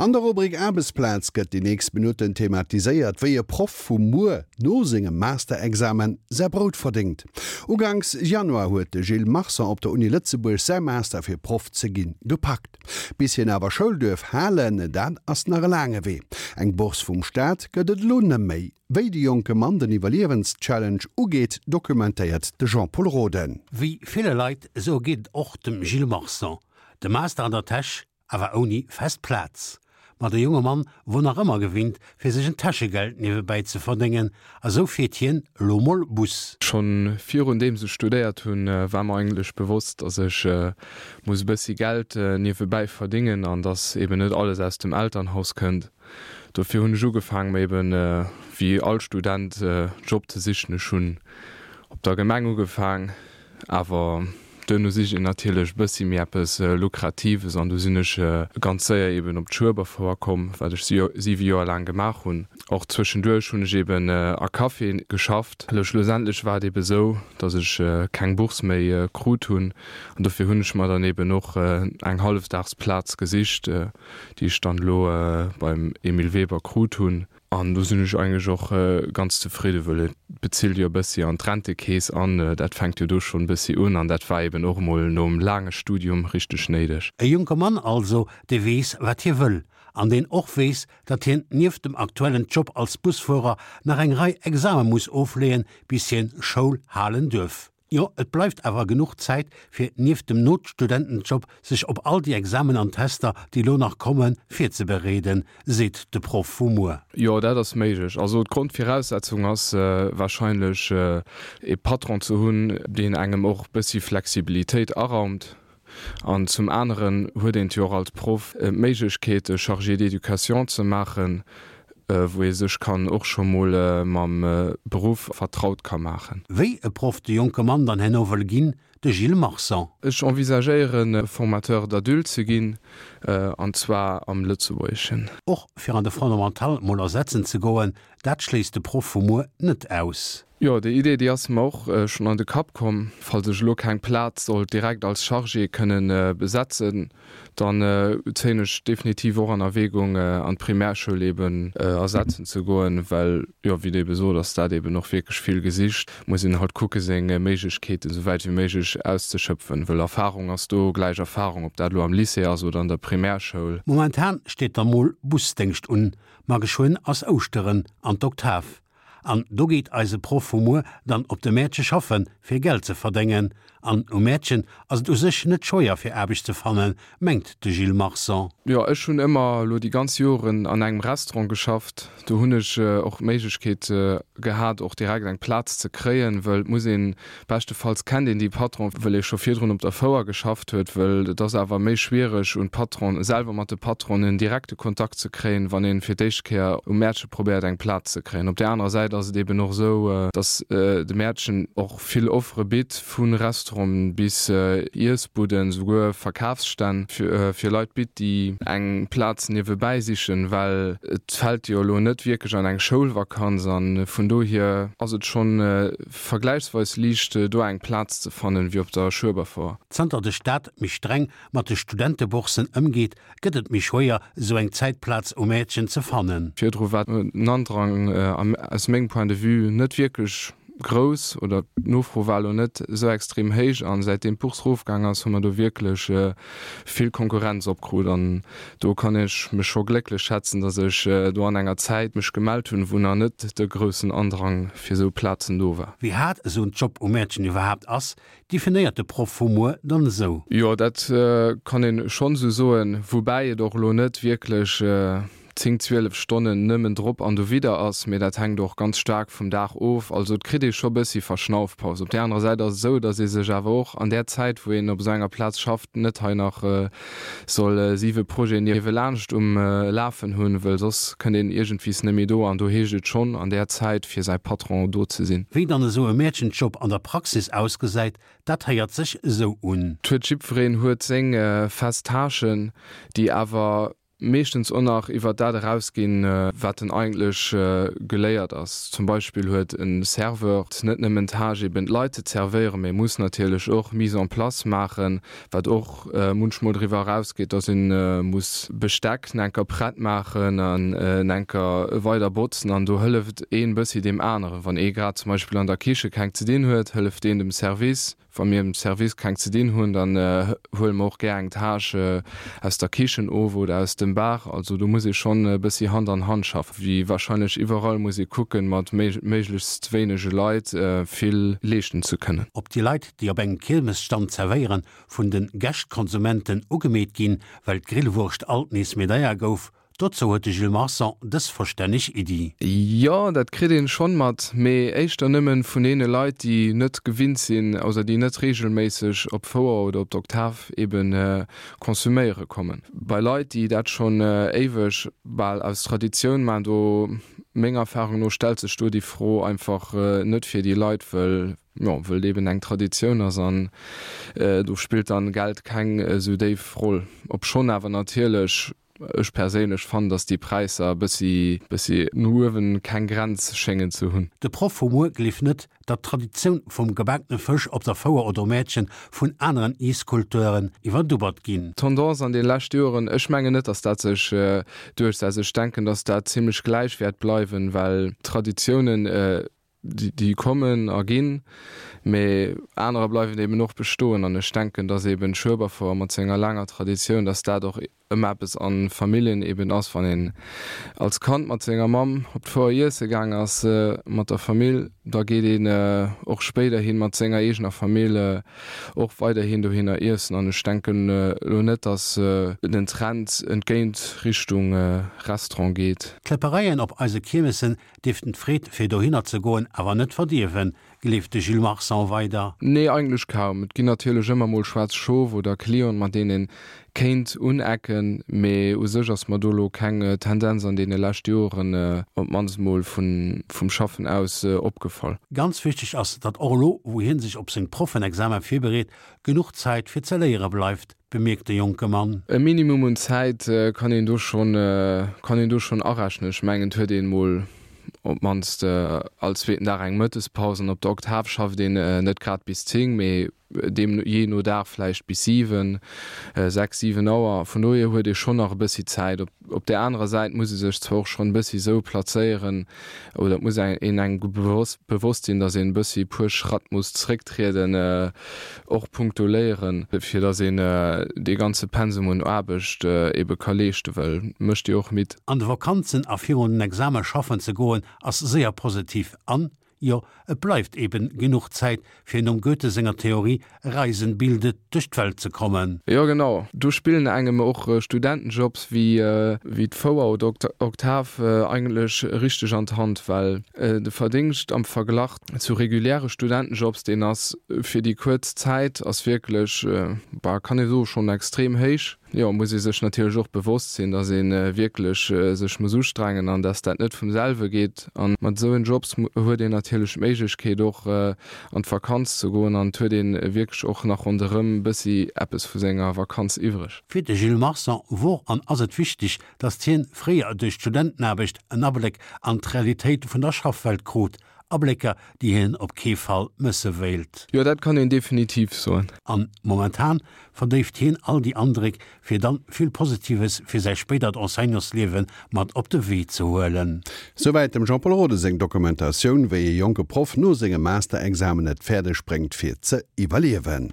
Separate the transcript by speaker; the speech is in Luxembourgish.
Speaker 1: An der Rubrik Aarbechtsplaz gëtt déi nächst Minutten thematiséiert, wéi e Proff vu muer no sengem Masterexamen säi Brout verdéngt. Uganks Januar huet de Gilles Marson op der Uni Lëtzebuerg säi Master fir Proff ze ginn gepackt. Bis hien awer Schoul duerf halen, dat ass nach e laange Wee. Eng Bourse vum Staat gëtt et elo neméi. Wéi de jonke Mann den Iwwerliewenschallenge ugeet, dokumentéiert de Jean-Pol Roden.
Speaker 2: Wéi ville Leit, esou geet et och dem Gilles Marson. De Master an der Täsch, awer ouni fest Plaz. Ma de jonge Mann wor nach ëmmer gewinnt, fir sech en Täschegeld niewebäi ze verdéngen, a sou fiert hien elo mol Bus.
Speaker 3: Schonn virun deems ech studéiert hunn, war mer eigentlech bewosst, dass ech muss e bëssi Geld niewebäi verdéngen an dass eben net alles aus dem Elternhaus kënnt. Dofir hunn ech ugefaang mer eben wéi all Student Job ze sichen. Ech hunn op der Gemeng ugefaang, awer Duerno sicht een natierlech e bëssi méi eppes Lukratives an du sinn ech ganz séier eben op d'Schueberfouer komm, wat ech siwe Joer laang gemaach hunn. Och zwëschenduerch hunn ech eben a Caféen geschafft. Elo schlussendlech war et ebe sou, datt ech keng Bourse méi krut hunn an dofir hunn ech mer dann eben och eng Hallefdagsplaz gesicht, déi ech dann elo beim Emile Weber krut hunn. An do sinn ech eigentlech och ganz zefridde, wëll et bezilt jo e bëssi an d'Rentekeess an dat fänkt jo do schonn e bëssi un an dat war eben och emol nom laange Studium richteg néideg.
Speaker 2: E jonke Mann also, dee weess, wat hie wëll an deen och weess, datt hien nieft dem aktuellen Job als Busfuerer nach eng Rei Exame muss ofleeën, bis hien Schoul halen duerf. Jo, et bleift awer genuch Zäit, fir nieft dem Notstudentenjob sech op all déi Examen an Tester, déi elo nach kommen, virzebereeden, seet de Proff vu muer.
Speaker 3: Jo, dat ass méiglech. Also d'Grondviraussetzung ass warscheinlech ee Patron ze hunn, deen engem och bëssi Flexibilitéit araumt. An zum aneren huet een jo och als Proff d'Méiglechkeet e Chargé d'éducation ze maachen, wou ee sech kann och scho mol mam Beruff vertraut ka maachen.
Speaker 2: Wéi e Proff de jonke Mann dann herno wëll ginn, de Gilles Marsan.
Speaker 3: Ech envisagéieren Formateur d'adultes ze ginn, an zwar am Lëtzebuergeschen.
Speaker 2: Och fir an de Fondamental mol ersetzen ze goen, dat schléisst de Proff vu muer net aus.
Speaker 3: Jo, déi Idee, déi ass mer och schonn an de Kapp komm. Falls ech elo keng Plaz sollt direkt als Chargé kënnen besetzen, dann zéien ech definitiv och an Erwägung, an d'Primärschoul eben ersetzen ze goen, well, jo, wéi Der ebe sot, ass dat eben och wierklech vill gesicht. Muss een halt kucke seng Méiglechkeeten esou wäit wéi méiglech auszeschöpfen, wëll Erfahrung ass do gläich Erfahrung, ob dat elo am Lycée ass oder an der Primärschoul.
Speaker 2: Momentan steet da mol Busdéngscht un, ma geschwënn ass Ouschteren an d'Oktav. An do geet eise Proff vu muer dann op de Mäertche schaffen, fir Geld ze verdéngen. An um Mäertchen ass et u sech net schwéier fir Aarbecht ze fannen, mengt de Gilles Marsan.
Speaker 3: Jo, ech hunn ëmmer elo déi ganz Joren an engem Restaurant geschafft. Do hunn ech och d'Méiglechkeet gehat, och direkt eng Plaz ze kréien, wëll et muss een, beschtefalls kennt een déi Patron, wëll ee scho virdrun op der Fouer geschafft huet, wëll et ass awer méi schwiereg un d'Patron, selwer mat de Patronen direkte Kontakt ze kréien, wann een fir d'éischt Kéier um Mäertche probéiert eng Plaz ze kréien. Op där anerer Säit ass et eben och esou, datt de Mäertchen och vill Offere bitt, vu Restauranten bis Iessbudden, souguer Verkafsstänn fir Leit bitt, déi eng Plaz niewebäi sichen, well et fält jo elo net wierklech an eng Schoulvakanz an vun dohier ass et schonn vergläichsweis liicht do eng Plaz ze fannen wéi op der Schueberfouer.
Speaker 2: Zanter de Staat méi streng mat de Studentebourssen ëmgeet, gëtt et méi schwéier, esou eng Zäitplaz um Mäertchen ze fannen.
Speaker 3: Virdru war den Andrang aus mengem Point de vue net wierklech grouss oder d'Nofro war elo net esou extrem héich an säitdeem d'Bourse erofgaang ass, hu mer do wierklech vill Konkurrenz opkrut an do kann ech mech scho glécklech schätzen, dass ech do an enger Zäit mech gemellt hunn, wou nach net de groussen Andrang fir esou Plazen do war.
Speaker 2: Wéi haart esou en Job um Mäertchen iwwerhaapt ass, definéiert de Proff vu muer dann esou.
Speaker 3: Jo, dat kann een schonn esou soen, woubäi et och elo net wierklech 10, 12 Stonnen nëmmen drop an dowidder ass, mee dat hänkt och ganz staark vum Dag of. Also et kritt ee scho bëssi Verschnaufpaus. Op där anerer Säit ass et esou, datt ee sech awer och an där Zäit, wou een op esou enger Plaz schafft, net hei nach soll siwe Projeten niewelaanscht um Lafen hunn, wëll soss kënnt een iergendwies net méi do an do heescht et schonn an där Zäit fir säi Patron do ze sinn.
Speaker 2: Wéi dann esou e Mäerchenjob an der Praxis ausgesäit, dat héiert sech esou un.
Speaker 3: Et huet jiddwereen huet seng fest Tâchen, déi awer. meeschtens och nach iwwert dat erausginn, wat en eigentlech geléiert ass. Zum Beispill huet e Serveur net nëmmen d'Tâche eben d'Leit ze zervéieren, mee muss natierlech och Mise en place maachen, wat och munchmol driwwer erausgeet, dass ee muss Besteck enker prett maachen an enker weider botzen an do hëlleft een bëssi deem aneren. Wann ee grad zum Beispill an der Kiche keng ze dinn huet, hëlleft een dem Service. Wa mir am Service keng ze dinn hunn, dann huele mer och gär eng Tâche aus der Kichen of oder aus dem Bar. Also do muss ee schonn e bëssi Hand an Hand schaffen. Wéi warscheinlech iwwerall muss ee kucken, mat méiglechst wéinege Leit vill leeschten ze kënnen.
Speaker 2: Ob déi Leit, déi op engem Kiermesstand zerwéieren, vun de Gäscht-Konsumenten ugemeet ginn, well d'Grillwurscht alt nees méi deier gouf, dozou huet de Gilles Marson dës verstänneg Iddi.
Speaker 3: Jo, dat kritt een schonn mat, mee éischter nëmmen vun deene Leit, déi net gewinnt sinn, also déi net regelméisseg op d'Fouer oder op d'Oktav eben konsuméiere kommen. Bei Leit, déi dat schonn éiweg, bal aus Traditioun maachen, do, menger Erfahrung no, stellt sech do déi Fro einfach net fir déi Leit, wëll Jo, wëll et eben eng Traditioun ass an do spillt dann Geld keng esou déif Roll. Obschonn awer natierlech ech perséinlech fannen, dass déi Präisser e bëssi bëssi no uewen keng Grenz schéngen ze hunn.
Speaker 2: De Proff vu muer gleeft net, datt d'Traditioun vum gebakene Fësch op der Fouer oder um Mäertchen vun aneren Iesskulturen iwwerdubbert ginn.
Speaker 3: D'Tendance an de leschte Joren, ech mengen net, dass dat sech duerchsetzt. Ech denken, dass dat zimlech gläich wäert bleiwen, well Traditiounen, Déi kommen a ginn, mee anerer bleiwen eben och bestoen. An ech denken, dass eben d'Schueberfouer mat senger laanger Traditioun, dass dat och ëmmer eppes a Familljen eben ass, wann een als Kand mat senger Mamm op d'Fouer iesse gaang ass mat der Famill, da geet een och spéiderhin mat senger eegener Famill och weiderhin dohinner iessen. An ech denken elo net, dass den Trend entgéint Richtung Restaurant geet.
Speaker 2: D'Kläppereien op eise Kiermessen Dierften d'Freed fir dohinner ze goen awer net verdierwen, gleeft de Gilles Marsan weider.
Speaker 3: Nee, eigentlech kaum. Et ginn natierlech ëmmer mol schwaarz Schof oder Clienten, mat deenen een kéint unecken, mee u sech ass mer do lo keng Tendenz an deene lescht Joren, op d'mannst mol vum Schaffen aus, opgefall.
Speaker 2: Ganz wichteg ass, datt och elo, wou hien sech op seng Proffenexamen virbereet, genuch Zäit fir ze léiere bleift, bemierkt de jonke Mann.
Speaker 3: E Minimum un Zäit kann een do schonn, kann een do schonn arechnen. Ech mengen, et huet een mol op d'mannst all zweeten Dag eng Mëttespaus an op der Oktav schafft een net grad bis 10, mee deem jee no Dag vläicht bis 7, 6, 7 Auer. Vun dohier huet ee schonn nach e bëssi Zäit. Op op där anerer Säit muss ee sech zwar och schonn e bëssi esou plazéieren oder et muss een engem bewosst sinn, datt een e bëssi e puer Schratt muss zrécktrieden, och punkto Léieren, fir datt een dee ganze Pensum un Aarbecht ebe ka leeschten, well mécht jo och midd.
Speaker 2: An de Vakanzen a virun den Exame schaffen ze goen ass séier positiv an, jo, et bleift eben genuch Zäit fir nom Goethe senger Theorie Reisen bildet duerch d'Welt ze kommen.
Speaker 3: Jo genau, do spillen engem och Studentenjobs wéi d'Fouer oder Oktav eigentlech richteg an d'Hand, well de Verdingscht am Verglach zu reguläre Studentenjobs, deen ass fir déi kuerz Zäit ass wierklech, bah, kann ee soe schonn extrem héich. Jo, muss ee sech natierlech och bewosst sinn, dass ee wierklech sech muss ustrengen an dass dat net vum selwe geet. A mat esou en Jobs huet een natierlech d'Méiglechkeet och an d'Vakanz ze goen an et huet ee wierklech och nach ronderëm e bëssi eppes vu senger Vakanz iwwreg.
Speaker 2: Fir de Gilles Marsan wor an ass et wichteg, datt hien fréier duerch d'Studentenaarbecht en Abléck an d'Realitéit vun der Schaffwelt krut, Ablécker, déi hien op kee Fall mësse wéilt.
Speaker 3: Jo, dat kann een definitiv soen.
Speaker 2: An momentan verdéift hien all déi Andréck, fir dann vill Positives fir säi spéidert Enseignantsliewe mat op de Wee ze huelen.
Speaker 1: Souwäit dem Jean-Paul Rode seng Dokumentatioun, wéi e jonke Proff no sengem Masterexamen et fäerdeg bréngt fir ze iwwerliewen.